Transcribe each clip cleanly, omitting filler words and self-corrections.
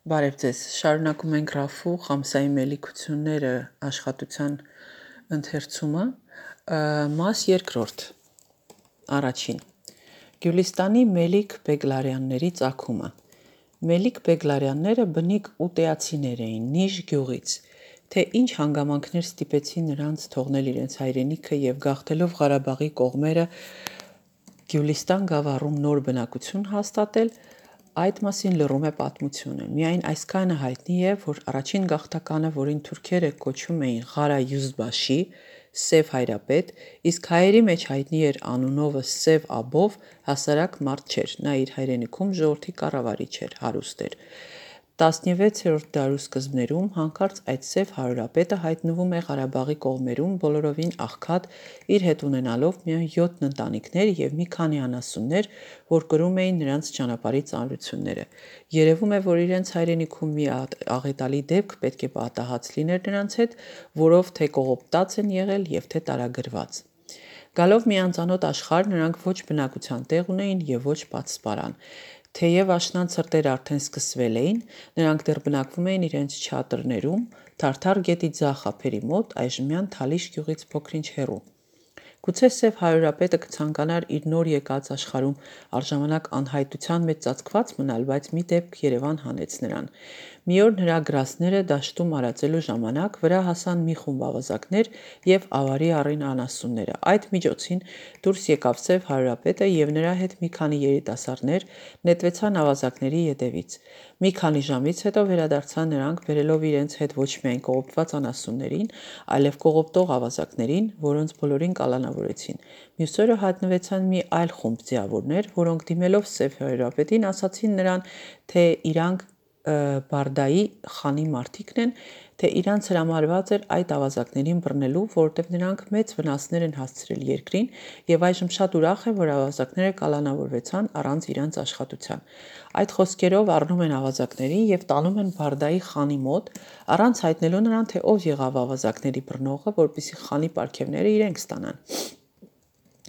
Բարև ձեզ, շարունակում ենք Ռաֆու Խամսայի մելիքությունները աշխատության ընթերցումը, մաս երկրորդ, առաջին, Գյուլիստանի Մելիք Բեգլարյանների ծագումը։ Մելիք Բեգլարյանները բնիկ ուտեացիներ էին Նիժ գյուղից, թե ինչ հանգամանքներ ստիպեցին նրանց թողնել իրենց հայրենիքը և գաղթելով Ղարաբաղի կողմերը Գյուլիստան գավառում նոր բնակություն հաստատել, այդ մասին լռում է պատմությունը։ Միայն այսքանը հայտնի է, որ առաջին գաղթականը, որին թուրքերը կոչում էին Ղարա Յուզբաշի, Սև հայրապետ, իսկ հայերի մեջ հայտնի էր անունովը Սև Աբով, հասարակ մարդ չէր, նա իր հայրենիքում ժողովրդի կառավարիչ էր, հարուստ էր։ 16-րդ դարու սկզբներում հանկարծ այդ Սև հարուրապետը հայտնվում է Ղարաբաղի կողմերում բոլորովին աղքատ, իր հետ ունենալով միայն 7 ընտանիքներ և մի քանի անասուններ, որ կրում էին նրանց ճանապարհի ծանրությունները։ Երևում է, որ իրենց հայրենիքում մի աղետալի դեպք պետք է պատահած լիներ նրանց հետ, որով թե կողոպտած են եղել և թե տարագրված։ Գալով մի անծանոթ աշխարհ, նրանք ոչ բնակության տեղ ունեին և ոչ պատսպարան։ Թեև աշնան ցրտեր արդեն սկսվել էին, նրանք դեռ բնակվում էին իրենց չադրներում, Թարթար գետի ձախ ափերի մոտ, այժմյան Թալիշ գյուղից փոքր-ինչ հեռու։ Գուցե Սև հարուրապետը կցանկանար իր նոր եկած աշխարհում առժամանակ անհայտության մեջ ծածկված մնալ, բայց մի դեպք Երևան հանեց նրան։ Մի օր նրա գրաստները դաշտում արածելու ժամանակ վրա հասան մի խումբ ավազակներ և ավարի առին անասունները։ Այդ միջոցին դուրս եկավ Սև հարուրապետը և նրա հետ մի քանի երիտասարդներ նետվեցան ավազակների ետևից։ Մի քանի ժամից հետո վերադարձան նրանք, բերելով իրենց հետ ոչ միայն կողոպտված անասուններին, այլև կողոպտող ավազակներին, որոնց բոլորին կալանավորեցին։ Մյուս օրը հայտնվեցան մի այլ խումբ ձիավորներ, որոնք դիմելով Սև հարուրապետին ասացին նրան, թե իրանք Բարդայի խանի մարդիկն են, թե իրանց հրամարված էր այդ ավազակներին բռնելու, որովհետև նրանք մեծ վնասներ են հասցրել երկրին և այժմ շատ ուրախ են, որ ավազակները կալանավորվեցան առանց իրանց աշխատության։ Այդ խոսքերով առնում են ավազակներին և տանում են Բարդայի խանի մոտ, առանց հայտնելու նրան, թե ով եղավ ավազակների բռնողը, որպեսզի խանի պարգևները իրենք ստանան։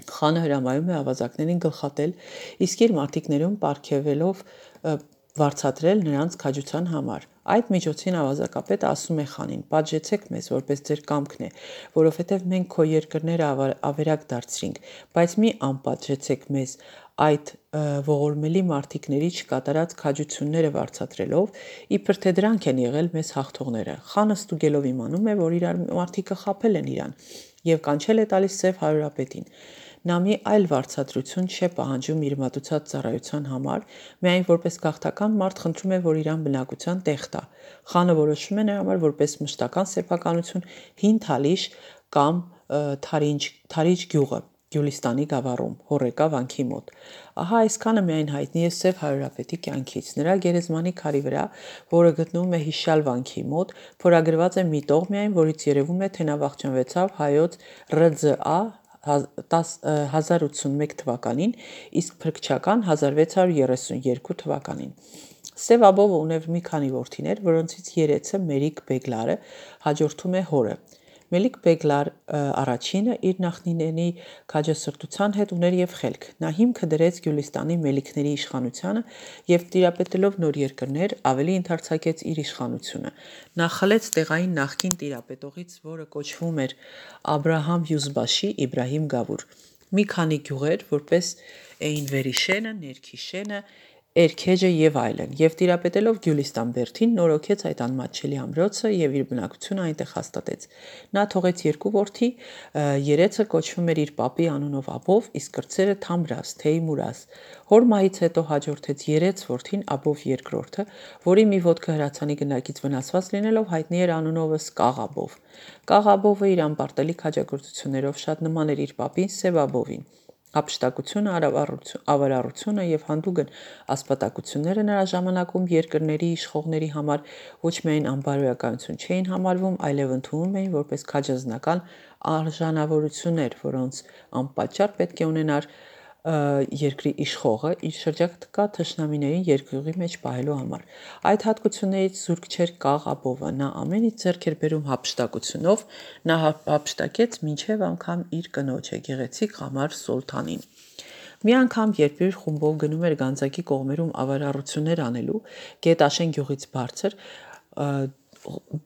Խանը հրամայում է ավազակներին գլխատել, իսկ իր մարտիկներում պարգևելով վարձատրել նրանց քաջության համար։ Այդ միջոցին ավազակապետը ասում է խանին. «Պատժեցեք մեզ, որպես ձեր կամքն է, որովհետև մենք քո երկրները ավերակ դարձրինք, բայց մի անպատժեցեք մեզ այդ ողորմելի մարտիկների չկատարած քաջությունները վարձատրելով, իբր թե դրանք են եղել մեզ հաղթողները»։ Խանը ստուգելով իմանում է, որ իր մարտիկը խաբել են իրան և կանչել է տալիս Սև հարուրապետին։ Նա մի այլ վարձատրություն չէ պահանջում իր մատուցած ծառայության համար, միայն որպես գաղթական մարդ խնդրում է, որ իրան բնակության տեղ տա։ Խանը որոշում է նրա համար որպես մշտական սեփականություն Հին Թալիշ կամ Թարիջ գյուղը Գյուլիստանի գավառում, Հոռեկա վանքի մոտ։ Ահա այսքանը միայն հայտնի է Սև հարուրապետի կյանքից։ Նրա գերեզմանի քարի վրա, որը գտնվում է Հիշյալ վանքի մոտ, փորագրված է մի տող միայն, որից երևում է, թե նա վախճանվեցավ հայոց ՌՁԱ 1081 թվականին, իսկ փրկչական 1632 թվականին։ Սև Աբովը ուներ մի քանի որդիներ, որոնցից երեցը Մելիք Բեգլարը հաջորդում է հորը։ Մելիք Բեգլար առաջինը իր նախնիների քաջասրտության հետ ուներ և խելք։ Նա հիմքը դրեց Գյուլիստանի մելիքների իշխանությանը և տիրապետելով նոր երկրներ, ավելի ընդարձակեց իր իշխանությունը։ Նա խլեց տեղային նախկին տիրապետողից, որը կոչվում էր Աբրահամ Յուզբաշի, Իբրահիմ Գավուր, մի քանի գյուղեր, որպես էին Վերիշենը, Ներքիշենը, Էրքեջը և այլն, և տիրապետելով Գյուլիստան բերդին նորոգեց այդ անմատչելի ամրոցը և իր բնակությունը այնտեղ հաստատեց։ Նա թողեց երկու որդի, երեցը կոչվում էր իր պապի անունով Աբով, իսկ կրտսերը Թամրազ, Թեյմուրազ։ Հոր մահից հետո հաջորդեց երեց որդին Աբով երկրորդը, որի մի ոտքը հրացանի գնդակից վնասված լինելով հայտնի էր անունովս Կաղ Աբով։ Կաղ Աբովը իր անպարտելի քաջագործություններով շատ նման էր իր պապին Սև Աբովին։ Հափշտակությունը, ավարառությունը և հանդուգն ասպատակությունները նրա ժամանակում երկրների իշխողների համար ոչ միայն անբարոյականություն չէին համարվում, այլև ընդունվում էին որպես քաջազնական արժանավորություններ, որոնց անպատճառ պետք է ունենար երկրի իշխողը իր շրջակա թշնամիներին երկյուղի մեջ պահելու համար։ Այդ հատկություններից զուրկ չէր Կաղ Աբովը, նա ամեն ինչ ձեռք էր բերում հափշտակությունով, նա հափշտակեց մինչև անգամ իր կնոջը՝ գեղեցիկ Ղամար Սոլթանին։ Մի անգամ, երբ իր խումբով գնում էր Գանձակի կողմերում ավարառություններ անելու, Գետաշեն գյուղից բարձր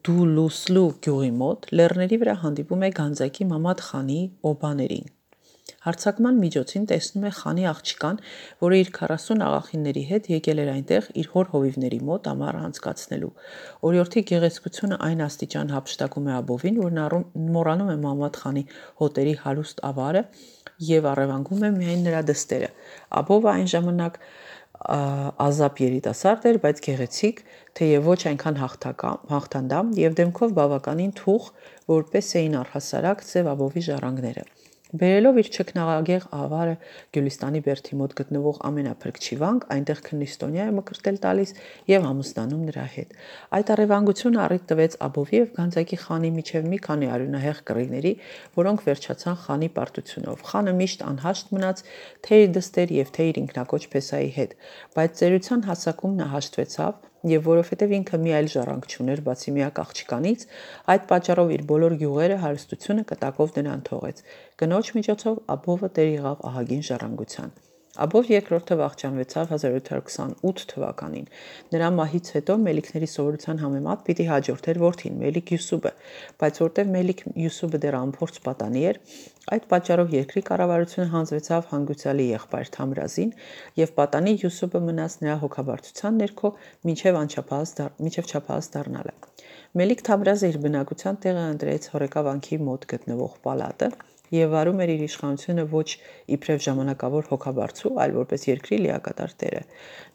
Դուլուսլու գյուղի մոտ, լեռների վրա հանդիպում է Գանձակի Մամադ խանի օբաներին։ Հարձակման միջոցին տեսնում է խանի աղջկան, որը իր 40 աղախինների հետ եկել էր այնտեղ իր հոր հովիվների մոտ ամառ անցկացնելու։ Օրիորդի գեղեցկությունը այն աստիճան հափշտակում է Աբովին, որ նա մոռանում է Մամադ խանի հոտերի հարուստ ավարը եւ առևանգում է միայն նրա դստերը։ Աբովը այն ժամանակ ազապ երիտասարդ էր, բայց գեղեցիկ, թեև ոչ այնքան հաղթանդամ եւ դեմքով բավականին թուխ, որպես էին առհասարակ Սև Աբովի ժառանգները։ Բերելով իր չքնաղագեղ ավարը Գյուլիստանի բերդի մոտ գտնվող ամենափրկչի վանք, այնտեղ քննիստոնյա է մկրտել տալիս եւ ամուսնանում նրա հետ։ Այդ առևանգությունը առիթ տվեց Աբովի եւ Գանձակի խանի միջև մի քանի արյունահեղ կռիվների, որոնք վերջացան խանի պարտությունով։ Խանը միշտ անհաշտ մնաց թե իր դստեր եւ թե իր ինքնակոչ փեսայի հետ, բայց ծերության հասակում նա հաշտվեցավ եւ որովհետեւ ինքը մի այլ ժառանգ չուներ բացի միակ աղջկանից, այդ պատճառով իր բոլոր գյուղերը հարստությունը կտակով նրան թողեց։ Կնոջ միջոցով Աբովը տեր եղավ ահագին ժառանգության։ Աբով երկրորդը վախճանվեցավ 1728 թվականին։ Նրա մահից հետո Մելիքների սովորության համեմատ պիտի հաջորդեր որդին Մելիք Յուսուբը, բայց որտեղ Մելիք Յուսուբը դեռ անփորձ պատանի էր, այդ պատճառով երկրի կառավարությունը հանձնվեցավ հանգուցյալի եղբայր Թամրազին եւ պատանի Յուսուբը մնաց նրա հոգաբարձության ներքո մինչև չափահաս դառնալը։ Մելիք Թամրազը իր բնակության տեղը ընտրեց Հորեկա վանքի մոտ գտնվող պալատը եւ վարում էր իր իշխանությունը ոչ իբրև ժամանակավոր հոգաբարձու, այլ որպես երկրի լիակատար տերը։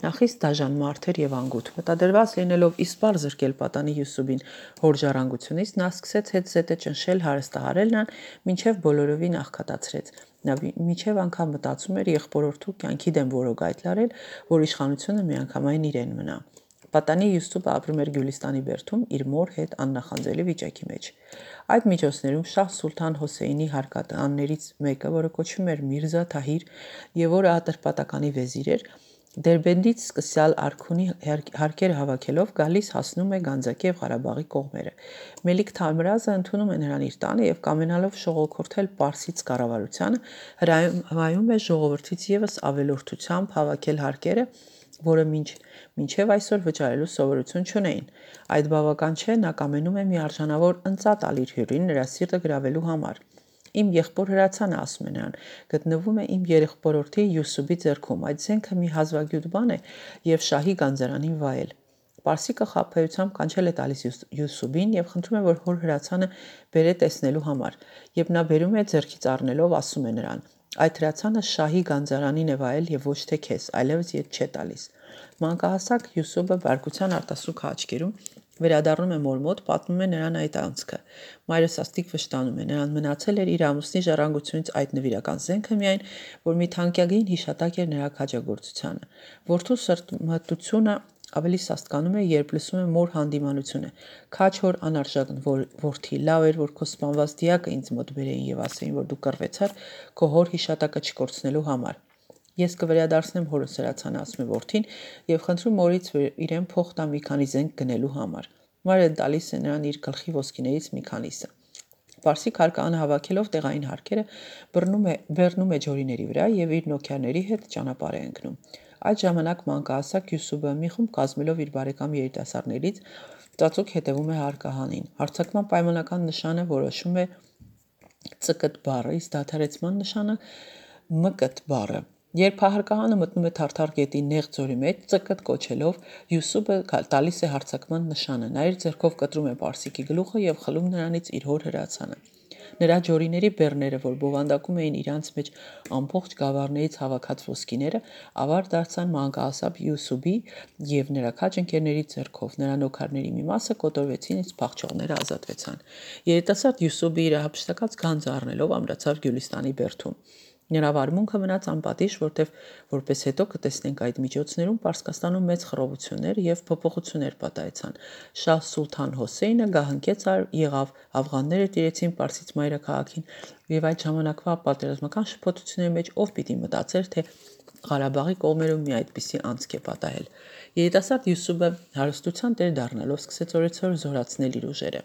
Նա խիստ դաժան մարդ էր եւ անգութ։ Մտադրված լինելով իսպար զրկել պատանի Յուսուբին հոր ժառանգությունից, նա սկսեց հետ զետը ճնշել հարստահարել նրան, մինչև բոլորովին աղքատացրեց։ Նա մինչև անգամ մտածում էր եղբորորդու կյանքի դեմ որոգ լարել, որ իշխանությունը միանգամայն իրեն մնա։ Պատանի Յուսուբը ապրում էր Գյուլիստանի բերդում իր մոր հետ աննախանձելի վիճակի մեջ։ Այդ միջոցներում Շահ Սուլթան Հոսեյնի հարկատաններից մեկը, որը կոչվում էր Միրզա Թահիր եւ որը Ատրպատականի վեզիր էր, Դերբենդից սկսյալ Արքունի հարկերը հավաքելով գալիս հասնում է Գանձակի եւ Ղարաբաղի կողմերը։ Մելիք Թամրազը ընդունում է նրան իր տանը եւ կամենալով շողոքորթել Պարսից կառավարությանը, հրամայում է ժողովրդից եւս ավելորդությամբ հավաքել հարկերը, որը մինչև այսօր վճարելու սովորություն չունեին։ Այդ բավական չէ, նա կամենում է մի արժանավոր ընծա տալ իր հյուրին նրա սիրտը գրավելու համար։ Իմ եղբոր հրացանը, ասում է նրան, գտնվում է իմ երեխբորորդի Յուսուբի ձեռքում, այդ զենքը մի հազվագյուտ բան է եւ շահի գանձարանին վայել։ Պարսիկը խաբեությամբ կանչել է տալիս Յուսուբին եւ խնդրում է, որ հոր հրացանը բերե տեսնելու համար, եւ նա բերում է ձեռքից առնելով ասում է նրան. այդ հրացանը շահի գանձարանին է վայել եւ ոչ թե քեզ, այլևս ետ չէ տալիս։ Մանկահասակ Յուսուբը բարկության արտասուք աչքերում վերադառնում է մոր մոտ, պատմում է նրան այդ անցքը։ Մայրը սաստիկ վշտանում է, նրան մնացել էր իր ամուսնի ժառանգությունից այդ նվիրական զենքը միայն, որ մի թանկագին հիշատակ էր նրա քաջագործությանը։ Որդու սրտմտությունը ավելի սաստկանում է, երբ լսում է մոր հանդիմանությունը։ Քաչ հոր անարժան որդի, լավ էր, որ քո սպանված դիակը ինձ մոտ բերեին եւ ասեին, որ դու կռվեցար քո հոր հիշատակը չկորցնելու համար։ Ես կվերադարձնեմ հորս հրացանը, ասում է որդին եւ խնդրում մորից իրեն փող տա մի քանի զենք գնելու համար։ Մայրը տալիս է նրան իր գլխի ոսկիներից մի քանիսը։ Պարսիկ հարկանը հավաքելով տեղային հարկերը բռնում է ջորիների վրա եւ իր նոքերների հետ ճանապարհ է ընկնում։ Այդ ժամանակ մանկահասակ Յուսուբը մի խումբ կազմելով իր բարեկամ երիտասարդներից ծածուկ հետևում է հարկահանին։ Հարձակման պայմանական նշանը որոշում է ՑԿՏ բառը, իսկ դադարեցման նշանը ՄԿՏ բառը։ Երբ հարկահանը մտնում է Թարթար գետի նեղ ձորի մեջ, ՑԿՏ կոչելով, Յուսուբը տալիս է հարձակման նշանը, նա իր ձեռքով կտրում է Պարսիկի գլուխը եւ խլում նրանից իր հոր հրացանը։ Նրա ջորիների բեռները, որ բովանդակում էին իրանց մեջ ամբողջ գավառներից հավաքած ոսկիները, ավար դարձան մանկահասակ Յուսուբի եւ նրա քաջ ընկերների ձեռքով։ Նրա նոքարների մի մասը կոտորվեցին, իսկ փախչողները ազատվեցան։ Երիտասարդ Յուսուբը իր հափշտակած գանձը առնելով ամրացավ Գյուլիստանի բերդում։ Նրա վարմունքը մնաց անպատիժ, որտեղ որպես հետո կտեսնենք այդ միջոցներում Պարսկաստանում մեծ խռովություններ եւ փոփոխություններ պատահեցան։ Շահ Սուլթան Հոսեյնը գահընկեց եղավ, աֆղանները տիրեցին Պարսից մայրաքաղաքին եւ այդ ժամանակվա պատերազմական շփոթությունների մեջ ով պիտի մտածեր, թե Ղարաբաղի կողմերում մի այդպիսի անցք է պատահել։ Երիտասարդ Յուսուբը հարստության տեր դառնալով սկսեց օրեցօր զորացնել իր ուժերը։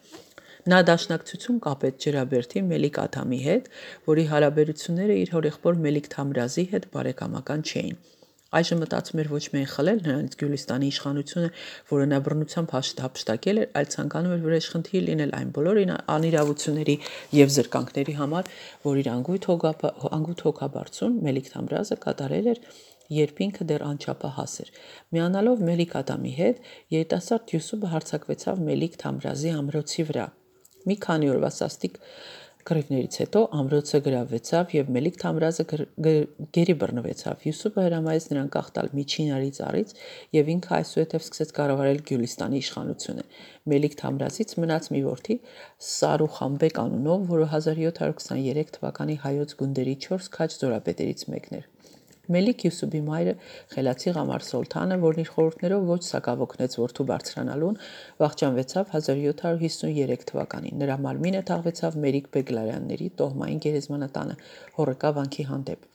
Նա դաշնակցություն կապեց Ջրաբերդի Մելիք Ադամի հետ, որի հարաբերությունները իր հորեղբոր Մելիք Թամրազի հետ բարեկամական չէին։ Այժմ մտածում էր ոչ միայն խլել նրանից Գյուլիստանի իշխանությունը, որը նա բռնությամբ հափշտակել էր, այլ ցանկանում էր վրեժխնդիր լինել այն բոլոր անիրավությունների եւ զրկանքների համար, որ իր անգութ հոգաբարձուն Մելիք Թամրազը կատարել էր, երբ ինքը դեռ անչափահաս էր։ Միանալով Մելիք Ադամի հետ, երիտասարդ Յուսուփը հարձակվեցավ Մելիք Թամրազի ամրոցի վրա։ Մի քանի օրվա սաստիկ կռիվներից հետո ամրոցը գրավվեցավ եւ Մելիք Թամրազը գերի բռնվեցավ։ Յուսուփը հրամայեց նրան կախտալ միջինարի ծառից եւ ինքը այսուհետև սկսեց կառավարել Գյուլիստանի իշխանությունը։ Մելիք Թամրազից մնաց մի որդի Սարուխանբեկ անունով, որը 1723 թվականի հայոց գունդերի 4 քաջ զորապետերից մեկն էր։ Մելիք Յուսուփի մայրը Խելացի Ղամար Սոլթանը, որն իր խորհուրդներով ոչ սակավոքնեց որդու բարձրանալուն, վախճանվեցավ 1753 թվականին։ Նրա մարմինը թաղվեցավ Մերիք Բեգլարյանների տոհմային գերեզմանատանը Հոռեկա վանքի հանդեպ։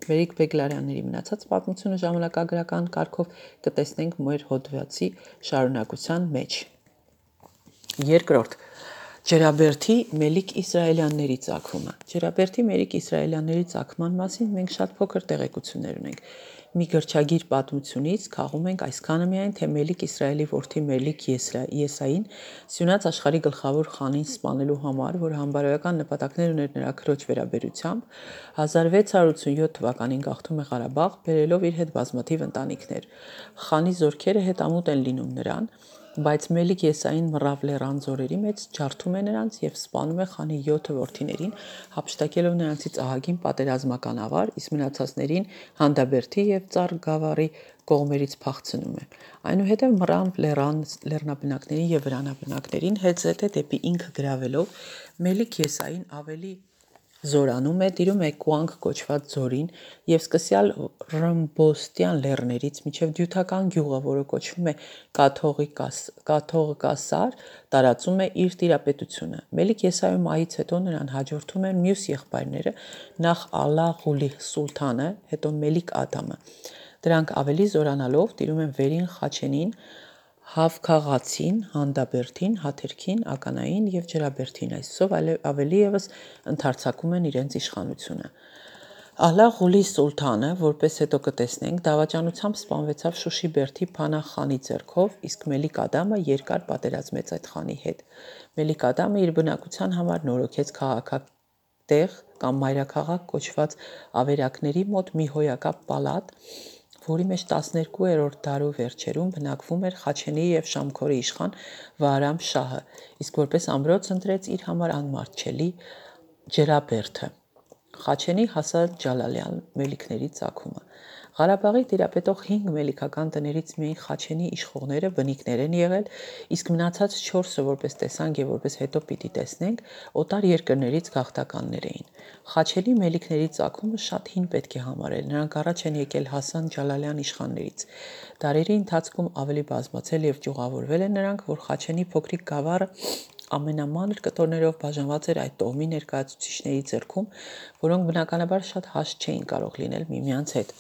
Մերիք Բեգլարյանների մնացած պատմությունը ժամանակագրական կարգով կտեսնենք մեր հոդվածի շարունակության մեջ։ Երկրորդ Ջրաբերդի Մելիք Իսրայելյանների ծագումը։ Ջրաբերդի Մելիք Իսրայելյանների ծագման մասին մենք շատ փոքր տեղեկություններ ունենք։ Մի գրչագիր պատմությունից քաղում ենք այսքանը միայն, թե Մելիք Իսրայելի որդի Մելիք Եսային սյունած աշխարհի գլխավոր խանին սպանելու համար, որ համբարոյական նպատակներ ուներ նրա քրոջ վերաբերությամբ, 1687 թվականին գաղթում է Ղարաբաղ, բերելով իր հետ բազմաթիվ ընտանիքներ։ Խանի զորքերը հետամուտ են լինում նրան, բայց Մելիք Եսային մռավ լեռան ձորերի մեջ ջարդում է նրանց եւ սպանում է խանի 7 որդիներին, հափշտակելով նրանցից ահագին պատերազմական ավար, իսկ մնացածներին Հանդաբերդի եւ Ծառ Գավառի կողմերից փախցնում է։ Այնուհետև մռավ լեռնաբնակներին եւ վրանաբնակներին հետզհետե դեպի ինքը գրավելով Մելիք Եսային ավելի զորանում է, տիրում է Կուանք կոչված ձորին եւ սկսյալ Ռմբոստյան լեռներից մինչեւ Դյութական գյուղը, որը կոչվում է Կաթողիկասար, տարածում է իր տիրապետությունը։ Մելիք Եսայի մահից հետո նրան հաջորդում են մյուս եղբայրները, նախ Ալա Ղուլի Սուլթանը, հետո Մելիք Ադամը։ Դրանք ավելի զորանալով տիրում են Վերին Խաչենին, Հավքաղացին, Հանդաբերդին, Հաթերքին, Ականային եւ Ջրաբերդին, այսով ավելի եւս ընդարձակում են իրենց իշխանությունը։ Ալա Ղուլի Սուլթանը, որպես հետո կտեսնենք, դավաճանությամբ սպանվեցավ Շուշի Բերդի Փանահ խանի ձեռքով, իսկ Մելիք Ադամը երկար պատերազմեց այդ խանի հետ։ Մելիք Ադամը իր բնակության համար նորոգեց քաղաքատեղ կամ մայրաքաղաք կոչված ավերակների մոտ մի հոյակապ պալատ, որի մեջ 12-րդ դարու վերջերում բնակվում էր Խաչենի եւ Շամքորի իշխան Վահրամ շահը, իսկ որպես ամրոց ընտրեց իր համար անմատչելի Ջրաբերդը։ Խաչենի Հասան Ջալալյան Մելիքների ծագումը։ Ղարաբաղի տիրապետող 5 մելիքական տներից միայն Խաչենի իշխողները բնիկներ են եղել, իսկ մնացած 4-ը, որպես տեսանք եւ որպես հետո պիտի տեսնենք, օտար երկրներից գաղթականներ էին։ Խաչենի մելիքների ծագումը շատ հին պետք է համարել, նրանք առաջ են եկել Հասան Ջալալյան իշխաններից։ Դարերի ընթացքում ավելի բազմացել եւ ճյուղավորվել են նրանք, որ Խաչենի փոքրիկ գավառը ամենամանր կտորներով բաժանված էր այդ տոհմի ներկայացուցիչների ձեռքում, որոնք բնականաբար շատ հաշտ չէին կարող լինել միմյանց հետ։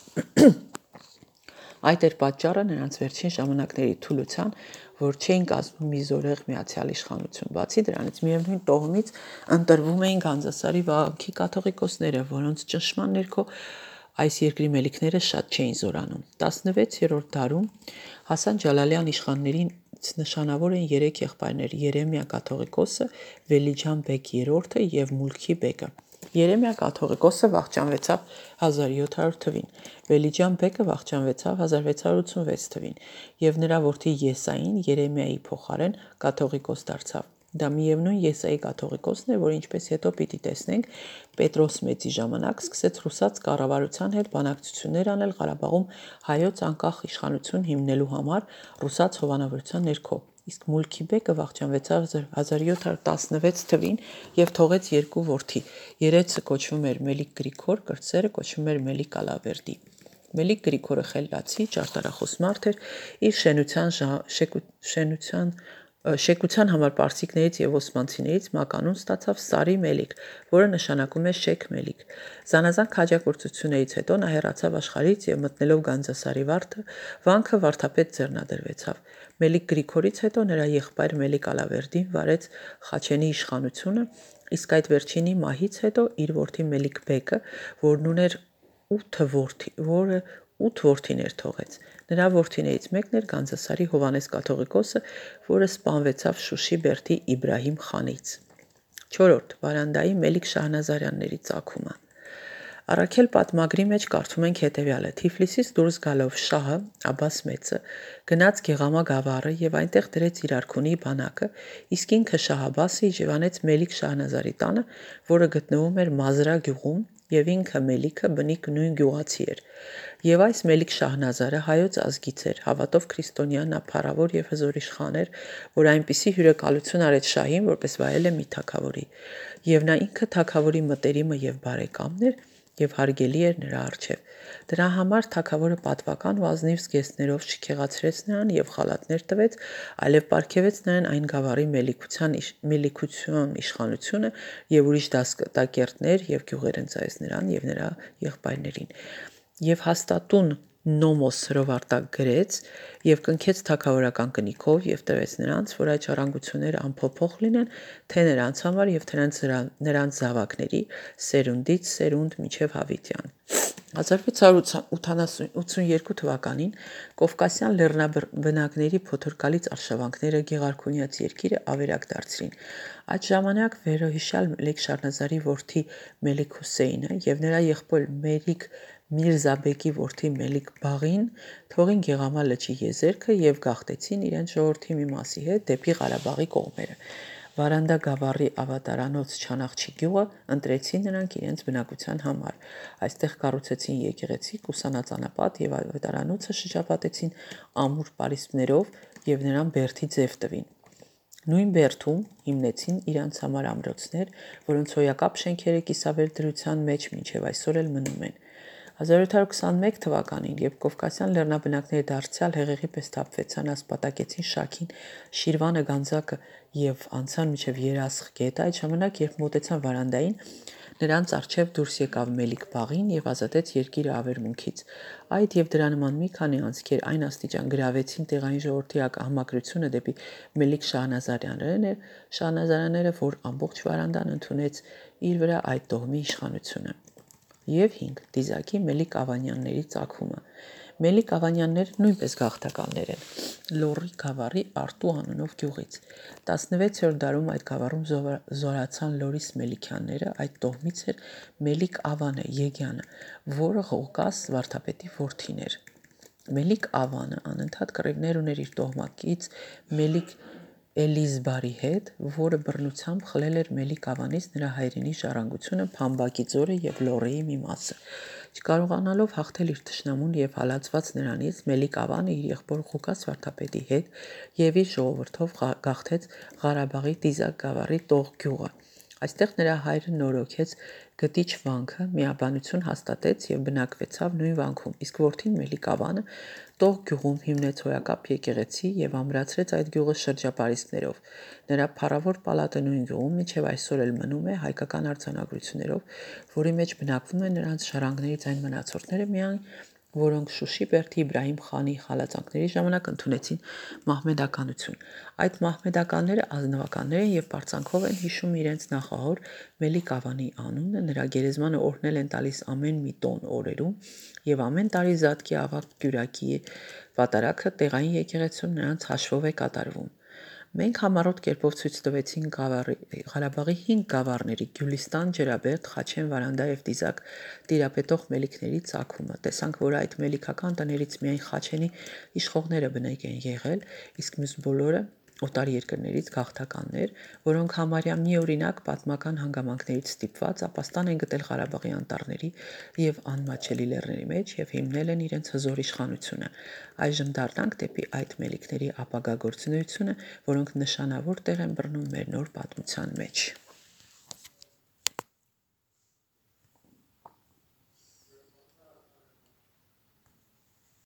Այդ էր պատճառը նրանց վերջին ժամանակների թուլության, որ չէին կազմում մի զորեղ միացյալ իշխանություն։ Բացի դրանից միևնույն տոհմից ընտրվում էին Գանձասարի վանքի կաթողիկոսները, որոնց ճնշման ներքո այս երկրի մելիքները շատ չէին զորանում։ 16-րդ դարում Հասան Ջալալյան իշխաններից նշանավոր են 3 եղբայրներ՝ Երեմիա կաթողիկոսը, Վելիջան բեգ III եւ Մուլքի բեգը։ Երեմիա կաթողիկոսը վախճանվեցավ 1700 թվին, Վելիջան բեկը վախճանվեցավ 1686 թվին եւ նրա որդի Եսային Երեմիայի փոխարեն կաթողիկոս դարձավ։ Դա միևնույն Եսայի կաթողիկոսն է, որ ինչպես հետո պիտի տեսնենք, Պետրոս Մեծի ժամանակ սկսեց ռուսաց կառավարության հետ բանակցություններ անել Ղարաբաղում հայոց անկախ իշխանություն հիմնելու համար ռուսաց հովանավորության ներքո։ Իսկ Մուլքի բեկը վախճանվեցավ 1716 թվին եւ թողեց 2 որդի։ Երեցը կոչվում էր Մելիք Գրիգոր, կրտսերը կոչվում էր Մելիք Ալավերդի։ Մելիք Գրիգորը խելացի, ճարտարախոս մարդ էր, իր շենության Շեկության համար պարսիկներից եւ օսմանցիներից մականուն ստացավ Սարի Մելիք, որը նշանակում է շեք մելիք։ Զանազան քաջագործություններից հետո նա հեռացավ աշխարհից եւ մտնելով Գանձասարի վարդը, վանքը վարդապետ ձեռնադրվեցավ։ Մելիք Գրիգորից հետո նրա եղբայր Մելիք Ալավերդին վարեց Խաչենի իշխանությունը, իսկ այդ վերջինի մահից հետո իր որդի Մելիք Բեկը, որն ուներ 8 որդիներ թողեց։ Նրա որդիներից մեկն էր Գանձասարի Հովանես կաթողիկոսը, որը սպանվեցավ Շուշի բերդի Իբրահիմ խանից։ 4. Վարանդայի Մելիք Շահնազարյանների ծագումը։ Առաքել պատմագրի մեջ կարդում ենք հետևյալը. Թիֆլիսից դուրս գալով Շահը, Աբբաս մեծը, գնաց Գեղամա գավառը եւ այնտեղ դրեց իր արքունի բանակը, իսկ ինքը Շահ Աբբասը իջևանեց Մելիք Շահնազարի տանը, որը գտնվում էր Մազրա գյուղում, եւ ինքը Մելիքը բնիկ նույն գյուղացի էր։ Եվ այս Մելիք Շահնազարը հայոց ազգից էր, հավատով քրիստոնյա, նա փառավոր եւ հզոր իշխան էր, որ այնպիսի հյուրեկալություն արեց Շահին, որպես վայել է մի թագավորի։ Եվ նա ինքը թագավորի մտերիմը եւ բարեկամն էր եւ հարգելի էր նրա առջև։ Դրա համար թագավորը պատվական ու ազնիվ զգեստներով չքեղացրեց նրան եւ խալաթներ տվեց, այլև պարգևեց նրան այն գավառի մելիքություն իշխանությունը եւ ուրիշ դասկատակերտներ եւ գյուղեր ընծայեց նրան եւ նրա եղբայրներին։ Եվ հաստատուն նոմոս հրովարտակ գրեց եւ կնքեց թագավորական կնիքով եւ տվեց նրանց, որ այդ ժառանգությունները անփոփոխ լինեն, թե նրանց համար եւ թե նրանց զավակների սերունդից սերունդ մինչև Հավիտյան։ 1682 թվականին Կովկասյան լեռնաբնակների փոթորկալից արշավանքները Գեղարքունյաց երկիրը ավերակ դարձրին։ Այդ ժամանակ վերոհիշյալ Մելիք Շահնազարի որդի Մելիք Հուսեյնը եւ նրա եղբոր Մելիք Միրզաբեկի որդի Մելիք Բաղին թողին Գեղամա լճի եզերքը եւ գաղթեցին իրենց ժողովրդի մի մասի հետ դեպի Ղարաբաղի կողմերը։ Վարանդա գավառի ավատարանոց Չանախչի գյուղը ընտրեցին նրանք իրենց բնակության համար։ Այստեղ կառուցեցին եկեղեցի, ուսանած անապատ եւ ավատարանոցը շրջապատեցին ամուր պարիսպներով եւ նրան բերդի ձև տվին։ Նույն բերդում հիմնեցին իրանց համար ամրոցներ, որոնց հոյակապ շենքերը կիսավեր դրության մեջ մինչև այսօր էլ մնում են։ 1721 թվականին, երբ Կովկասյան լեռնաբնակները դարձյալ հեղեղի պես թափվեցան, ասպատակեցին Շաքին, Շիրվանը, Գանձակը եւ անցան մինչև Երասխ գետը, այդ ժամանակ, երբ մոտեցան Վարանդային, նրանց առջև դուրս եկավ Մելիք Բաղին եւ ազատեց երկիրը ավերմունքից։ Այդ եւ դրա նման մի քանի անձկեր այն աստիճան գրավեցին տեղային ժողովրդի համակրությունը դեպի Մելիք Շահնազարյանները, որ ամբողջ Վարանդան ընդունեց իր վրա այդ տոհմի իշխանությունը։ Եվ 5. Դիզակի Մելիք Ավանյանների ծագումը։ Մելիք Ավանյանները նույնպես գաղթականներ են։ Լոռի գավառի Արտու անունով գյուղից։ 16-րդ դարում այդ գավառում զորացան Լորիս Մելիքյանները, այդ տոհմից էր Մելիք Ավանը Եգյանը, որը Ղուկաս վարդապետի որդին էր։ Մելիք Ավանը անընդհատ կռիվներ ուներ իր տոհմակից Մելիք Էլիզբարի հետ, որը բռնությամբ խլել էր Մելիք Ավանից նրա հայրենի ժառանգությունը Փամբակի ձորը եւ Լոռիի մի մասը։ Չկարողանալով հաղթել իր թշնամուն եւ հալածված նրանից, Մելիք Ավանը իր եղբոր Ղուկաս վարդապետի հետ եւ իր ժողովրդով գաղթեց Ղարաբաղի Դիզակ գավառի Տող գյուղը։ Այստեղ նրա հայրը նորոգեց գտիչ վանքը, միաբանություն հաստատեց եւ բնակվեցավ նույն վանքում, իսկ որդին Մելիք Ավանը Տող գյուղում հիմնեց հոյակապ եկեղեցի եւ ամրացրեց այդ գյուղը շրջապարիսպներով։ Նրա փառավոր պալատը նույն գյուղում մինչև այսօր էլ մնում է հայկական արձանագրություններով, որի մեջ բնակվում են նրանց ժառանգներից այն մնացորդները միայն, որոնք Շուշի բերդի Իբրահիմ խանի խալածանքների ժամանակ ընդունեցին մահմեդականություն։ Այդ մահմեդականները ազնվականներ են եւ պարծանքով են հիշում իրենց նախահոր Մելիք Ավանի անունը, նրա գերեզմանը օրհնել են տալիս ամեն մի տոն օրերում եւ ամեն տարի Զատկի ավագ Գյուրակի պատարագը տեղային եկեղեցում նրանց հաշվով է կատարվում։ Մենք համառոտ կերպով ցույց տվեցինք Ղարաբաղի 5 գավառների Գյուլիստան, Ջրաբերդ, Խաչեն, Վարանդա եւ Դիզակ տիրապետող մելիքների ծագումը։ Տեսանք, որ այդ մելիքական տներից միայն Խաչենի իշխողները բնիկ են եղել, իսկ մյուս բոլորը օտար երկրներից գաղթականներ, որոնք համարյա միօրինակ պատմական հանգամանքներից ստիպված ապաստան են գտել Ղարաբաղի անտառների եւ անմաչելի լեռների մեջ եւ հիմնել են իրենց հզոր իշխանությունը։ Այժմ դառնանք դեպի այդ մելիքների ապագա գործունեությունը, որոնք նշանավոր տեղ են բռնում մեր նոր պատմության մեջ։